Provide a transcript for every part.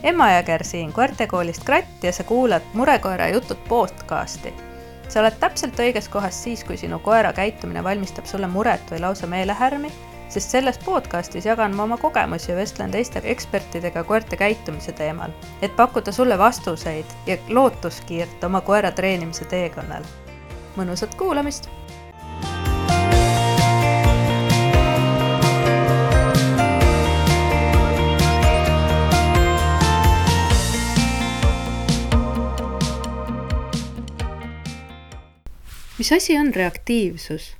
Emma Jõger siin koertekoolist Kratt ja sa kuulad Murekoera jutud podcasti. Sa oled täpselt õiges kohas siis, kui sinu koera käitumine valmistab sulle muret või lausa meelehärmi, sest selles podcastis jagan ma oma kogemusi ja vestlen teiste ekspertidega koerte käitumise teemal, et pakkuda sulle vastuseid ja lootuskiirt oma koera treenimise teekonnal. Mõnusat kuulamist! Mis asi on reaktiivsus?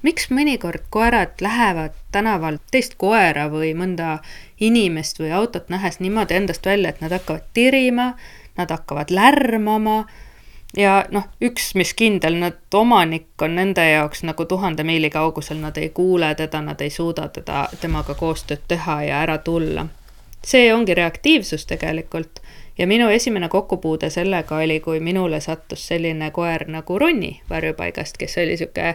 Miks mõnikord koerad lähevad tänavalt teist koera või mõnda inimest või autot nähes niimoodi endast välja, et nad hakkavad tirima, nad hakkavad lärmama ja üks mis kindel, nad omanik on nende jaoks nagu 1000 miili kaugusel, nad ei kuule teda, nad ei suuda temaga koostööd teha ja ära tulla. See ongi reaktiivsus tegelikult. Ja minu esimene kokkupuude sellega oli, kui minule sattus selline koer nagu Ronni varjupaigast, kes oli siuke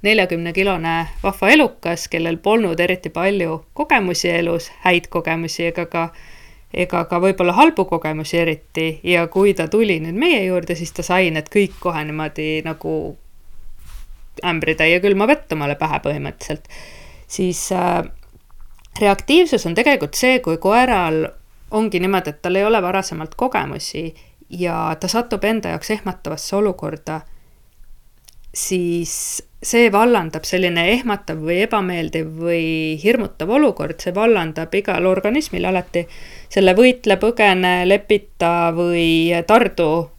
40-kilone vahva elukas, kellel polnud eriti palju kogemusi elus, häid kogemusi ega ka võib-olla halbu kogemusi eriti. Ja kui ta tuli nüüd meie juurde, siis ta sai need kõik kohe niimoodi nagu ämbritäie külma vett omale pähe põhimõtteliselt. Siis reaktiivsus on tegelikult see, kui koeral ongi niimoodi, et tal ei ole varasemalt kogemusi ja ta satub enda jaoks ehmatavasse olukorda, siis see vallandab selline ehmatav või ebameeldiv või hirmutav olukord, see vallandab igal organismil alati selle võitle, põgene, lepita või tardu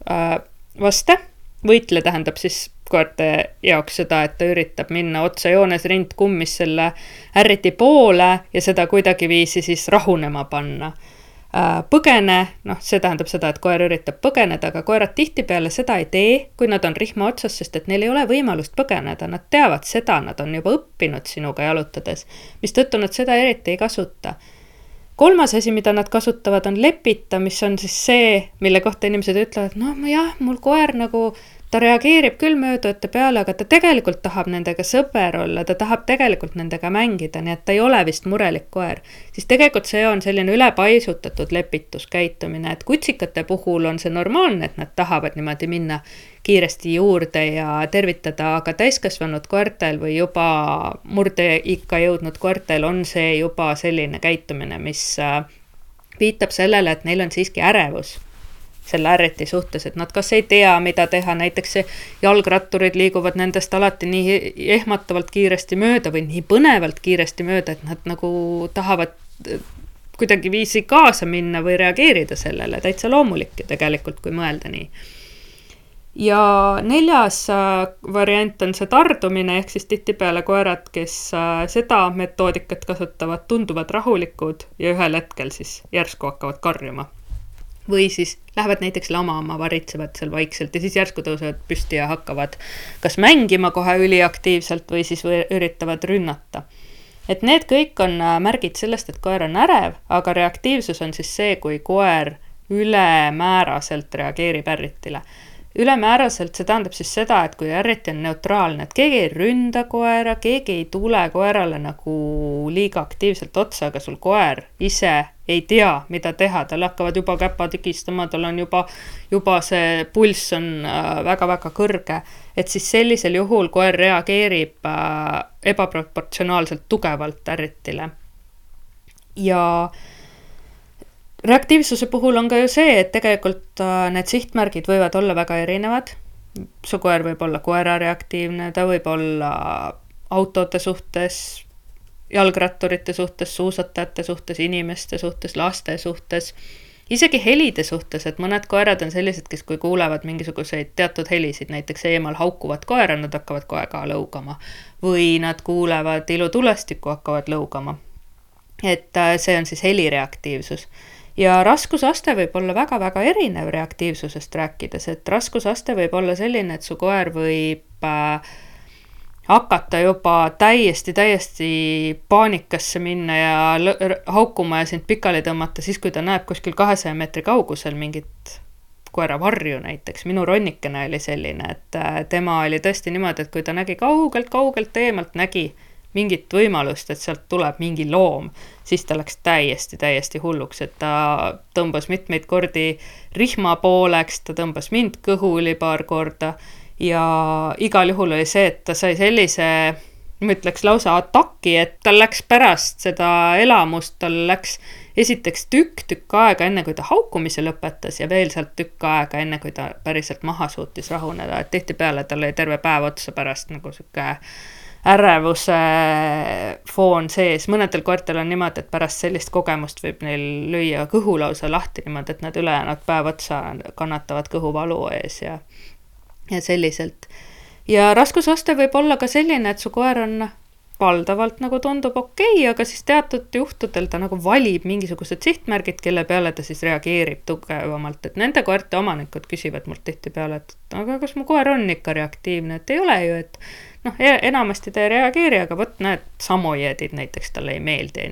vaste. Võitle tähendab siis koerte jaoks seda, et ta üritab minna otsejoones rindkummis selle ärriti poole ja seda kuidagi viisi siis rahunema panna. Põgene, see tähendab seda, et koer üritab põgeneda, aga koerad tihtipeale seda ei tee, kui nad on rihma otsas, sest et neil ei ole võimalust põgeneda, nad teavad seda, nad on juba õppinud sinuga jalutades, mis tõttu nad seda eriti ei kasuta. Kolmas asi, mida nad kasutavad, on lepita, mis on siis see, mille kohta inimesed ütlevad, mul koer nagu ta reageerib küll möödujate peale, aga ta tegelikult tahab nendega sõber olla, ta tahab tegelikult nendega mängida, nii et ta ei ole vist murelik koer. Siis tegelikult see on selline ülepaisutatud lepituskäitumine, et kutsikate puhul on see normaalne, et nad tahavad niimoodi minna kiiresti juurde ja tervitada, aga täiskasvanud koertel või juba murdeikka jõudnud koertel on see juba selline käitumine, mis viitab sellele, et neil on siiski ärevus selle ärriti suhtes, et nad kas ei tea, mida teha, näiteks jalgratturid liiguvad nendest alati nii ehmatavalt kiiresti mööda või nii põnevalt kiiresti mööda, et nad nagu tahavad kuidagi viisi kaasa minna või reageerida sellele, täitsa loomulik tegelikult, kui mõelda nii. Ja 4. variant on see tardumine, ehk siis tihtipeale koerad, kes seda metoodikat kasutavad, tunduvad rahulikud ja ühel hetkel siis järsku hakkavad karjuma. Või siis lähevad näiteks lamama, varitsevad seal vaikselt ja siis järsku tõusevad püsti ja hakkavad kas mängima kohe üliaktiivselt või siis üritavad rünnata. Et need kõik on märgid sellest, et koer on ärev, aga reaktiivsus on siis see, kui koer ülemääraselt reageerib ärritile. Ülemääraselt see tähendab siis seda, et kui ärriti on neutraalne, et keegi ei ründa koera, keegi ei tule koerale nagu liiga aktiivselt otsa, aga sul koer ise ei tea, mida teha, tal hakkavad juba käpa tükistama, tal on juba see pulss on väga-väga kõrge, et siis sellisel juhul koer reageerib ebaproportsionaalselt tugevalt ärritile. Ja reaktiivsuse puhul on ka ju see, et tegelikult need sihtmärgid võivad olla väga erinevad. Su koer võib olla koera reaktiivne, ta võib olla autode suhtes, jalgratturite suhtes, suusatajate suhtes, inimeste suhtes, laste suhtes, isegi helide suhtes, et mõned koerad on sellised, kes kui kuulevad mingisuguseid teatud helisid, näiteks eemal haukuvad koera, nad hakkavad kohe ka lõugama või nad kuulevad ilutulestikku, hakkavad lõugama. Et see on siis helireaktiivsus. Ja raskusaste võib olla väga-väga erinev reaktiivsusest rääkides, et raskusaste võib olla selline, et su koer võib hakata juba täiesti paanikasse minna ja haukuma ja sind pikali tõmmata siis, kui ta näeb kuskil 200 meetri kaugusel mingit koera varju näiteks. Minu Ronnikene oli selline, et tema oli tõesti niimoodi, et kui ta nägi kaugelt eemalt, nägi mingit võimalust, et sealt tuleb mingi loom, siis ta läks täiesti hulluks, et ta tõmbas mitmeid kordi rihma pooleks, ta tõmbas mind kõhuli paar korda ja igal juhul oli see, et ta sai sellise, ma ütleks lausa ataki, et tal läks pärast seda elamust, tal läks esiteks tükk aega enne, kui ta haukumise lõpetas ja veel sealt tükk aega enne, kui ta päriselt maha suutis rahuneda, et tihtipeale tal oli terve päev otsa pärast nagu sihuke ärevuse foon sees. Mõnedel koertel on niimoodi, et pärast sellist kogemust võib neil lüüa kõhu lausa lahti niimoodi, et nad ülejäänud päev otsa kannatavad kõhuvalu ees ja selliselt. Ja raskusaste võib olla ka selline, et su koer on valdavalt nagu tundub okei, aga siis teatud juhtudel ta nagu valib mingisugused sihtmärgid, kelle peale ta siis reageerib tugevamalt, et nende koerte omanikud küsivad mult tihtipeale, et aga kas mu koer on ikka reaktiivne, et ei ole ju, et enamasti ta ei reageeri, aga võt näed, samojeedid näiteks talle ei meeldi.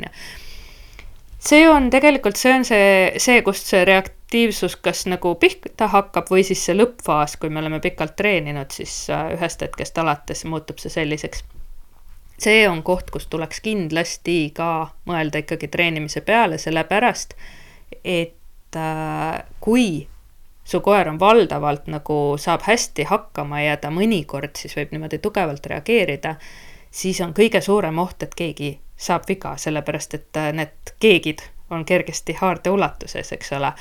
See on tegelikult see, kust see reaktiivsus kas nagu pihta hakkab või siis see lõppfaas, kui me oleme pikalt treeninud, siis ühest hetkest alates muutub see selliseks. See on koht, kus tuleks kindlasti ka mõelda ikkagi treenimise peale, sellepärast, et kui su koer on valdavalt nagu saab hästi hakkama ja ta mõnikord siis võib niimoodi tugevalt reageerida, siis on kõige suurem oht, et keegi saab viga, sellepärast, et need keegid on kergesti haarde ulatuses, eks ole.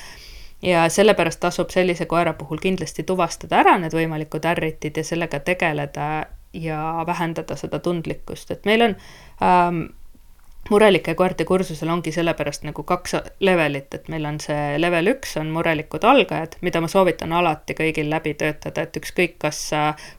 Ja sellepärast tasub sellise koera puhul kindlasti tuvastada ära need võimalikud ärritid ja sellega tegeleda ja vähendada seda tundlikkust, et meil on murelike koerte kursusel ongi sellepärast nagu 2 levelit, et meil on see level 1 on murelikud algajad, mida ma soovitan alati kõigil läbi töötada, et ükskõik kas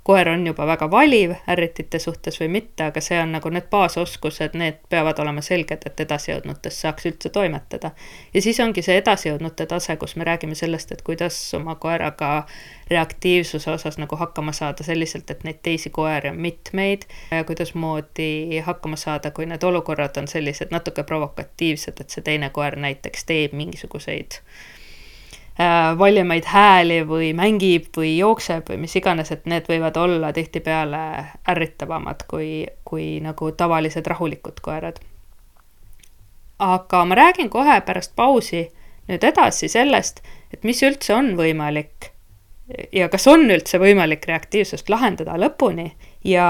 koer on juba väga valiv ärritite suhtes või mitte, aga see on nagu need baasoskused, need peavad olema selged, et edasijõudnutes saaks üldse toimetada. Ja siis ongi see edasijõudnute tase, kus me räägime sellest, et kuidas oma koeraga reaktiivsuse osas nagu hakkama saada selliselt, et neid teisi koeri on mitmeid ja kuidas moodi hakkama saada, kui need olukorrad on sellised natuke provokatiivsed, et see teine koer näiteks teeb mingisuguseid valjemaid hääli või mängib või jookseb või mis iganes, et need võivad olla tihtipeale ärritavamad kui nagu tavalised rahulikud koerad. Aga ma räägin kohe pärast pausi nüüd edasi sellest, et mis üldse on võimalik ja kas on üldse võimalik reaktiivsust lahendada lõpuni ja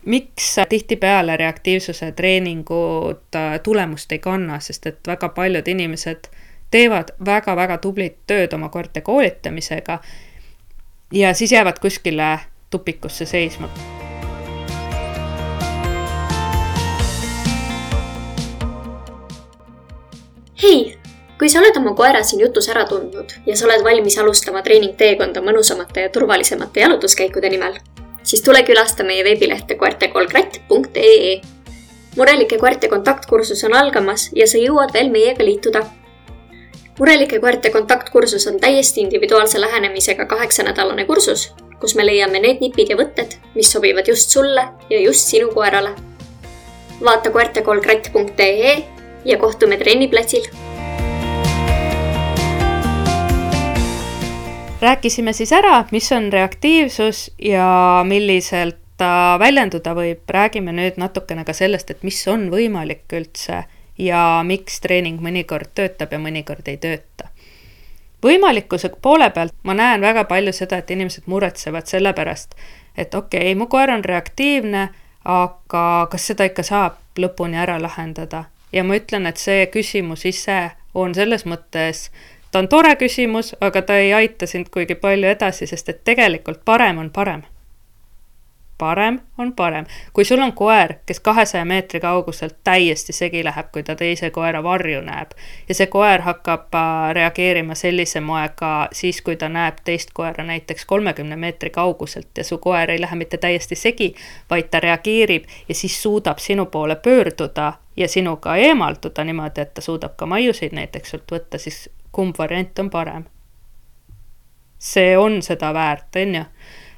miks tihtipeale reaktiivsuse treeningud tulemust ei kanna, sest et väga paljud inimesed teevad väga tublit tööd oma koerte koolitamisega ja siis jäävad kuskile tupikusse seisma. Hei! Kui sa oled oma koera siin jutus ära tundnud ja sa oled valmis alustama treeningteekonda mõnusamate ja turvalisemate jalutuskäikude nimel, siis tule külasta meie veebilehte koertekolkratt.ee. Murelike koerte kontaktkursus on algamas ja sa jõuad veel meiega liituda. Murelike koerte kontaktkursus on täiesti individuaalse lähenemisega 8-nädalane kursus, kus me leiame need nipid ja võtted, mis sobivad just sulle ja just sinu koerale. Vaata koertekolkratt.ee ja kohtume trenniplatsil. Rääkisime siis ära, mis on reaktiivsus ja milliselt ta väljenduda võib. Räägime nüüd natukene ka sellest, et mis on võimalik üldse ja miks treening mõnikord töötab ja mõnikord ei tööta. Võimalikkuse poole pealt ma näen väga palju seda, et inimesed muretsevad selle pärast, et okei, mu koer on reaktiivne, aga kas seda ikka saab lõpuni ära lahendada? Ja ma ütlen, et see küsimus ise on selles mõttes ta on tore küsimus, aga ta ei aita sind kuigi palju edasi, sest et tegelikult parem on parem. Parem on parem. Kui sul on koer, kes 200 meetri kauguselt täiesti segi läheb, kui ta teise koera varju näeb ja see koer hakkab reageerima sellise moega siis, kui ta näeb teist koera näiteks 30 meetri kauguselt ja su koer ei lähe mitte täiesti segi, vaid ta reageerib ja siis suudab sinu poole pöörduda ja sinuga eemalduda niimoodi, et ta suudab ka maiusid näiteks sult võtta, siis kumb variant on parem. See on seda väärt, on ju?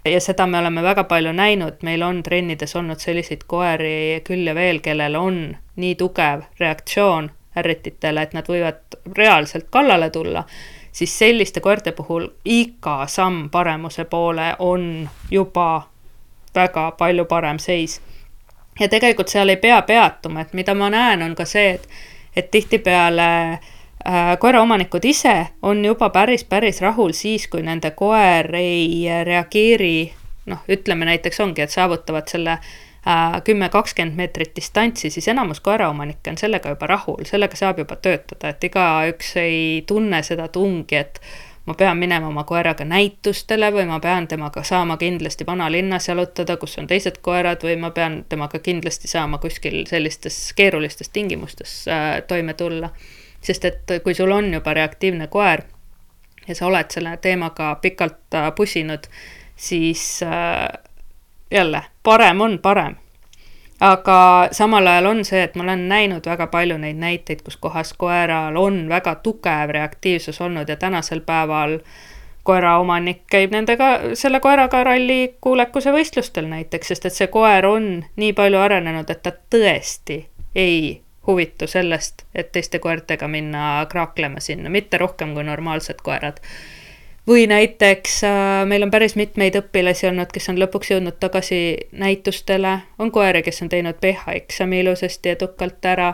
Ja seda me oleme väga palju näinud, meil on trennides olnud selliseid koeri küll ja veel, kellel on nii tugev reaktsioon ärrititele, et nad võivad reaalselt kallale tulla, siis selliste koerte puhul iga samm paremuse poole on juba väga palju parem seis. ja tegelikult seal ei pea peatuma, et mida ma näen, on ka see, et tihtipeale koeraomanikud ise on juba päris rahul siis, kui nende koer ei reageeri, ütleme näiteks ongi, et saavutavad selle 10-20 meetrit distantsi, siis enamus koeraomanikke on sellega juba rahul, sellega saab juba töötada, et igaüks ei tunne seda tungi, et ma pean minema oma koeraga näitustele või ma pean temaga saama kindlasti vanalinnas jalutada, kus on teised koerad, või ma pean temaga kindlasti saama kuskil sellistes keerulistes tingimustes toime tulla. Sest et kui sul on juba reaktiivne koer ja sa oled selle teemaga pikalt pusinud, siis jälle parem on parem. Aga samal ajal on see, et ma olen näinud väga palju neid näiteid, kus kohas koeral on väga tugev reaktiivsus olnud ja tänasel päeval koeraomanik käib selle koeraga ralli kuulekuse võistlustel näiteks, sest et see koer on nii palju arenenud, et ta tõesti ei huvitu sellest, et teiste koertega minna kraaklema sinna, mitte rohkem kui normaalsed koerad. Või näiteks meil on päris mitmeid õpilasi olnud, kes on lõpuks jõudnud tagasi näitustele, on koeri, kes on teinud PH-eksami ilusasti edukalt ära,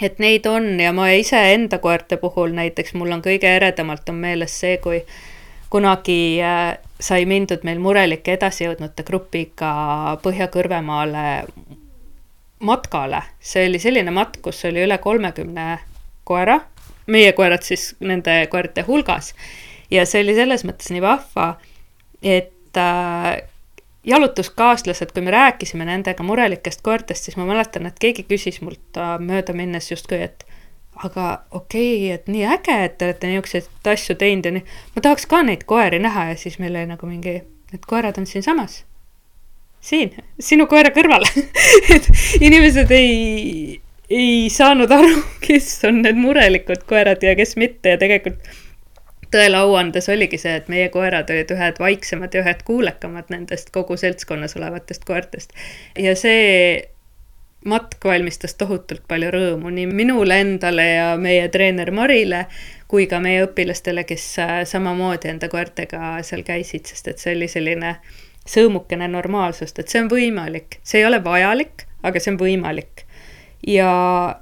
et neid on ja ma ise enda koerte puhul näiteks, mul on kõige eredamalt on meeles see, kui kunagi sai mindud meil murelike edasijõudnute grupiga Põhja-Kõrvemaale matkale. See oli selline matk, kus oli üle 30 koera, meie koerad siis nende koerte hulgas. Ja see oli selles mõttes nii vahva, et jalutuskaaslased, kui me rääkisime nendega murelikest koertest, siis ma mäletan, et keegi küsis mult mööda minnes justkui, et aga okei, et nii äge, et te olete niisuguseid asju teinud ja nii. Ma tahaks ka neid koeri näha ja siis meil oli nagu mingi, need koerad on siin samas. Siin, sinu koera kõrval. Et inimesed ei saanud aru, kes on need murelikud koerad ja kes mitte ja tegelikult tõele auandes oligi see, et meie koerad olid ühed vaiksemad ja ühed kuulekamad nendest kogu seltskonnas olevatest koertest. Ja see matk valmistas tohutult palju rõõmu nii minule endale ja meie treener Marile, kui ka meie õpilastele, kes samamoodi enda koertega seal käisid, sest et see oli selline sõõmukene normaalsust, et see on võimalik. See ei ole vajalik, aga see on võimalik. Ja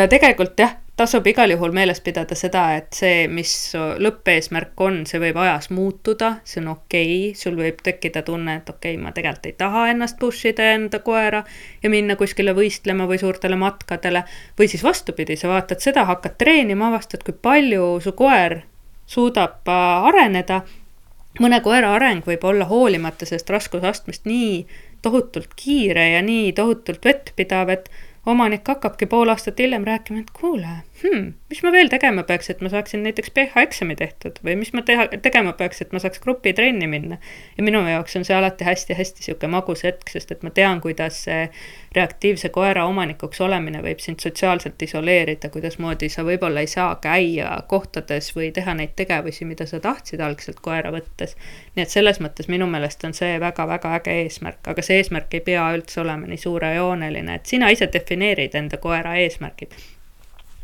tegelikult jah, tasub igal juhul meeles pidada seda, et see, mis lõppeesmärk on, see võib ajas muutuda, see on okei, sul võib tekkida tunne, et okei, ma tegelikult ei taha ennast pushida enda koera ja minna kuskile võistlema või suurtele matkadele, või siis vastupidi, sa vaatad seda, hakkad treenima, avastad, kui palju su koer suudab areneda. Mõne koera areng võib olla hoolimata sellest raskusastmest nii tohutult kiire ja nii tohutult vettpidav, et omanik hakkabki pool aastat hiljem rääkima, et kuule, mis ma veel tegema peaks, et ma saaksin näiteks PH-eksami tehtud või mis ma tegema peaks, et ma saaks grupitrenni minna. Ja minu jaoks on see alati hästi siuke magus hetk, sest et ma tean, kuidas see reaktiivse koera omanikuks olemine võib sind sotsiaalselt isoleerida, kuidas moodi sa võib-olla ei saa käia kohtades või teha neid tegevusi, mida sa tahtsid algselt koera võttes. Nii et selles mõttes minu meelest on see väga äge eesmärk, aga see eesmärk ei pea üldse olema nii suurejooneline, et sina ise defineerid enda koera eesmärgid.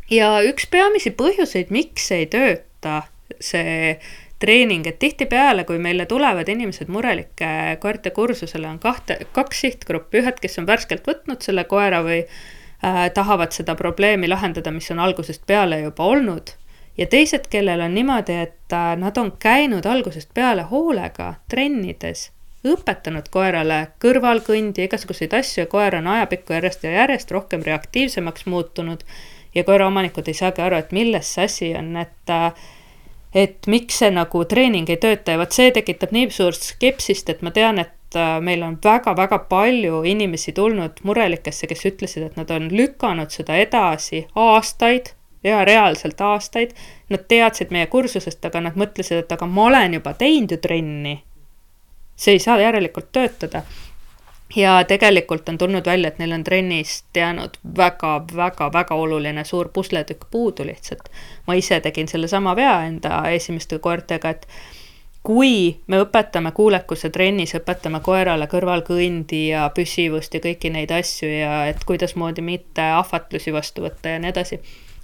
Ja üks peamisi põhjuseid, miks ei tööta see treening, et tihtipeale, kui meile tulevad inimesed murelike koerte kursusele, on kaks sihtgruppi, ühed, kes on värskelt võtnud selle koera või tahavad seda probleemi lahendada, mis on algusest peale juba olnud, ja teised, kellel on niimoodi, et nad on käinud algusest peale hoolega trennides, õpetanud koerale kõrvalkõndi, igasuguseid asju ja koer on ajapikku järjest rohkem reaktiivsemaks muutunud ja koeraomanikud ei saagi aru, et milles see asi on, et miks see nagu treening ei tööta ja see tekitab nii suurt skepsist, et ma tean, et meil on väga palju inimesi tulnud murelikesse, kes ütlesid, et nad on lükanud seda edasi aastaid ja reaalselt aastaid. Nad teadsid meie kursusest, aga nad mõtlesid, et aga ma olen juba teinud ju trenni. See ei saa järelikult töötada. Ja tegelikult on tulnud välja, et neil on trennist jäänud väga oluline suur pusletükk puudu lihtsalt. Ma ise tegin selle sama vea enda esimeste koertega, et kui me õpetame kuulekuse trennis, õpetame koerale kõrvalkõndi ja püsivust ja kõiki neid asju ja et kuidas moodi mitte ahvatlusi vastu võtta ja nii edasi.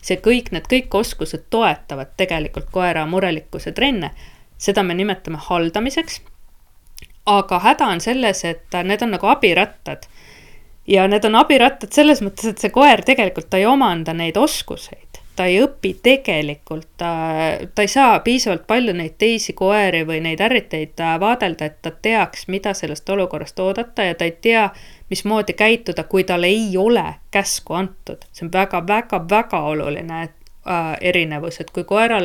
Need kõik oskused toetavad tegelikult koera murelikkuse trenne. Seda me nimetame haldamiseks. aga häda on selles, et need on nagu abirattad. Ja need on abirattad selles mõttes, et see koer tegelikult ta ei omanda neid oskuseid. Ta ei õpi tegelikult, ta ei saa piisavalt palju neid teisi koeri või neid ärriteid vaadelda, et ta teaks, mida sellest olukorrast oodata ja ta ei tea, mismoodi käituda, kui tal ei ole käsku antud. See on väga oluline erinevus, et kui koer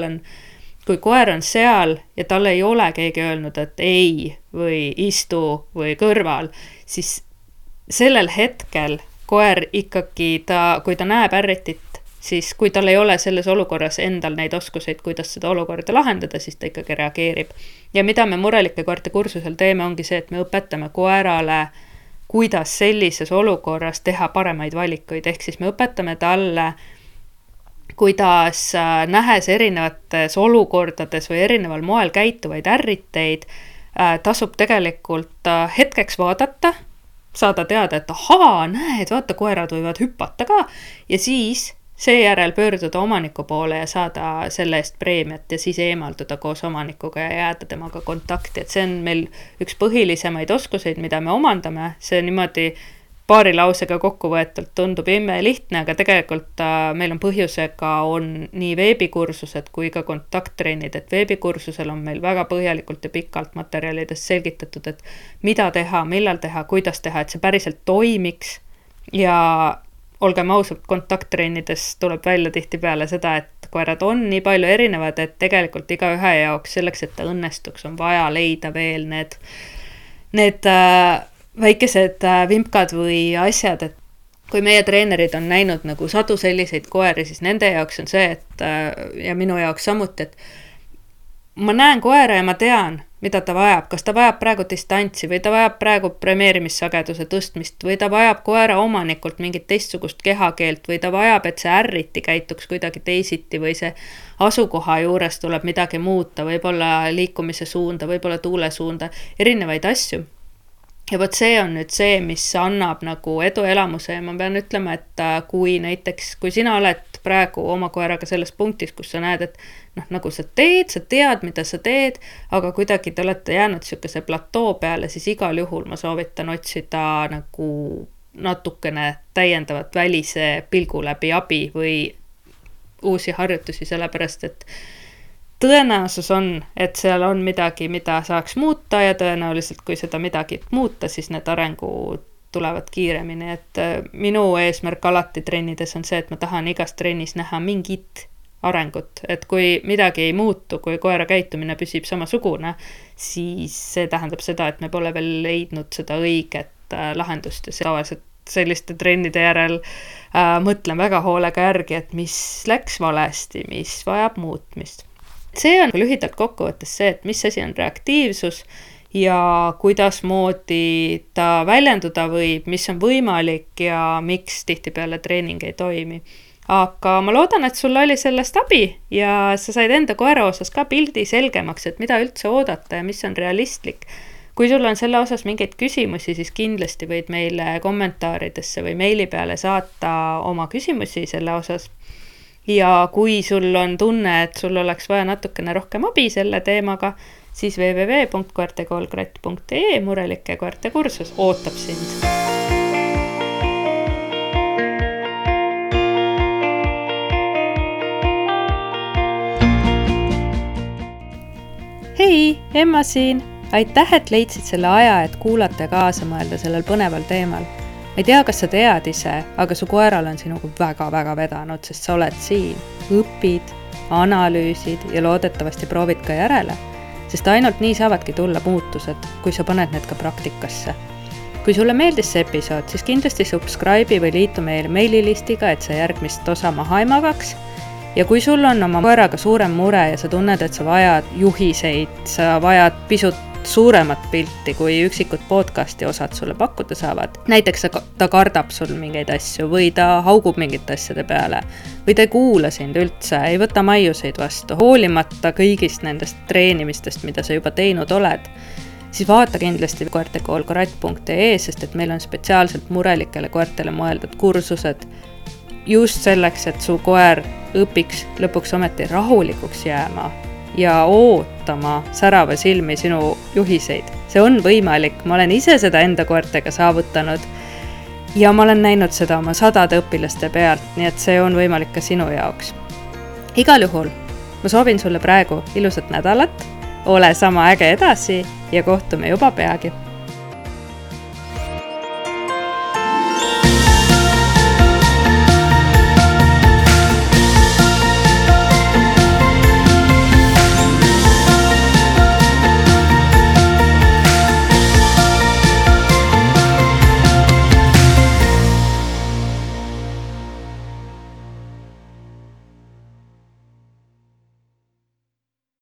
on seal ja tal ei ole keegi öelnud, et ei või istu või kõrval, siis sellel hetkel koer ikkagi, kui ta näeb ärritit, siis kui tal ei ole selles olukorras endal neid oskuseid, kuidas seda olukorda lahendada, siis ta ikkagi reageerib. Ja mida me murelike koerte kursusel teeme, ongi see, et me õpetame koerale, kuidas sellises olukorras teha paremaid valikuid. Ehk siis me õpetame talle, kuidas nähes erinevates olukordades või erineval moel käituvaid ärriteid, tasub tegelikult hetkeks vaadata, saada teada, et ahaa, näed, vaata, koerad võivad hüpata ka ja siis seejärel pöörduda omaniku poole ja saada selle eest preemiat ja siis eemalduda koos omanikuga ja jääda temaga kontakti. Et see on meil üks põhilisemaid oskuseid, mida me omandame. See niimoodi paari lausega kokkuvõetult tundub imelihtne, aga tegelikult meil on põhjusega on nii veebikursused kui ka kontakttrennid. Et veebikursusel on meil väga põhjalikult ja pikalt materjalidest selgitatud, et mida teha, millal teha, kuidas teha, et see päriselt toimiks ja olgem ausalt, kontakttrennides tuleb välja tihtipeale seda, et koerad on nii palju erinevad, et tegelikult iga ühe jaoks selleks, et ta õnnestuks, on vaja leida veel need väikesed vimkad või asjad, et kui meie treenerid on näinud nagu sadu selliseid koeri, siis nende jaoks on see, et ja minu jaoks samuti, et ma näen koera ja ma tean, mida ta vajab, kas ta vajab praegu distantsi või ta vajab praegu premeerimissageduse tõstmist või ta vajab koera omanikult mingit teistsugust kehakeelt või ta vajab, et see ärriti käituks kuidagi teisiti või see asukoha juures tuleb midagi muuta, võib-olla liikumise suunda, võib-olla tuule suunda, erinevaid asju. Ja võt see on nüüd see, mis annab nagu eduelamuse ja ma pean ütlema, et kui sina oled praegu oma koeraga selles punktis, kus sa näed, et nagu sa tead, mida sa teed, aga kuidagi te olete jäänud sihukese platoo peale, siis igal juhul ma soovitan otsida nagu natukene täiendavat välise pilgu läbi abi või uusi harjutusi, sellepärast et tõenäosus on, et seal on midagi, mida saaks muuta ja tõenäoliselt, kui seda midagi muuta, siis need arengud tulevad kiiremini. Et minu eesmärk alati trennides on see, et ma tahan igas trennis näha mingit arengut. Et kui midagi ei muutu, kui koera käitumine püsib samasugune, siis see tähendab seda, et me pole veel leidnud seda õiget lahendust ja tavaliselt selliste trennide järel mõtlen väga hoolega järgi, et mis läks valesti, mis vajab muutmist. See on lühidalt kokkuvõttes see, et mis asi on reaktiivsus ja kuidas moodi ta väljenduda võib, mis on võimalik ja miks tihtipeale treening ei toimi. Aga ma loodan, et sul oli sellest abi ja sa said enda koera osas ka pildi selgemaks, et mida üldse oodata ja mis on realistlik. Kui sul on selle osas mingeid küsimusi, siis kindlasti võid meile kommentaaridesse või meili peale saata oma küsimusi selle osas. Ja kui sul on tunne, et sul oleks vaja natukene rohkem abi selle teemaga, siis www.koertekoolkratt.ee murelike koerte kursus ootab sind. Hei, Emma siin! Aitäh, et leidsid selle aja, et kuulata ja kaasa mõelda sellel põneval teemal. Ma ei tea, kas sa tead ise, aga su koeral on sinuga väga vedanud, sest sa oled siin, õpid, analüüsid ja loodetavasti proovid ka järele, sest ainult nii saavadki tulla muutused, kui sa paned need ka praktikasse. Kui sulle meeldis see episood, siis kindlasti subscribe'i või liitu meil meililistiga, et sa järgmist osa maha ei magaks. Ja kui sul on oma koeraga suurem mure ja sa tunned, et sa vajad juhiseid, sa vajad pisut suuremat pilti, kui üksikud podcasti osad sulle pakkuda saavad. Näiteks ta kardab sul mingeid asju või ta haugub mingite asjade peale või ta ei kuula sind üldse, ei võta maiuseid vastu, hoolimata kõigist nendest treenimistest, mida sa juba teinud oled, siis vaata kindlasti koertekoolkratt.ee, sest et meil on spetsiaalselt murelikele koertele mõeldud kursused just selleks, et su koer õpiks lõpuks ometi rahulikuks jääma ja ootama särava silmi sinu juhiseid. See on võimalik, ma olen ise seda enda koertega saavutanud ja ma olen näinud seda oma 100 õpilaste pealt, nii et see on võimalik ka sinu jaoks. Igal juhul ma soovin sulle praegu ilusat nädalat, ole sama äge edasi ja kohtume juba peagi.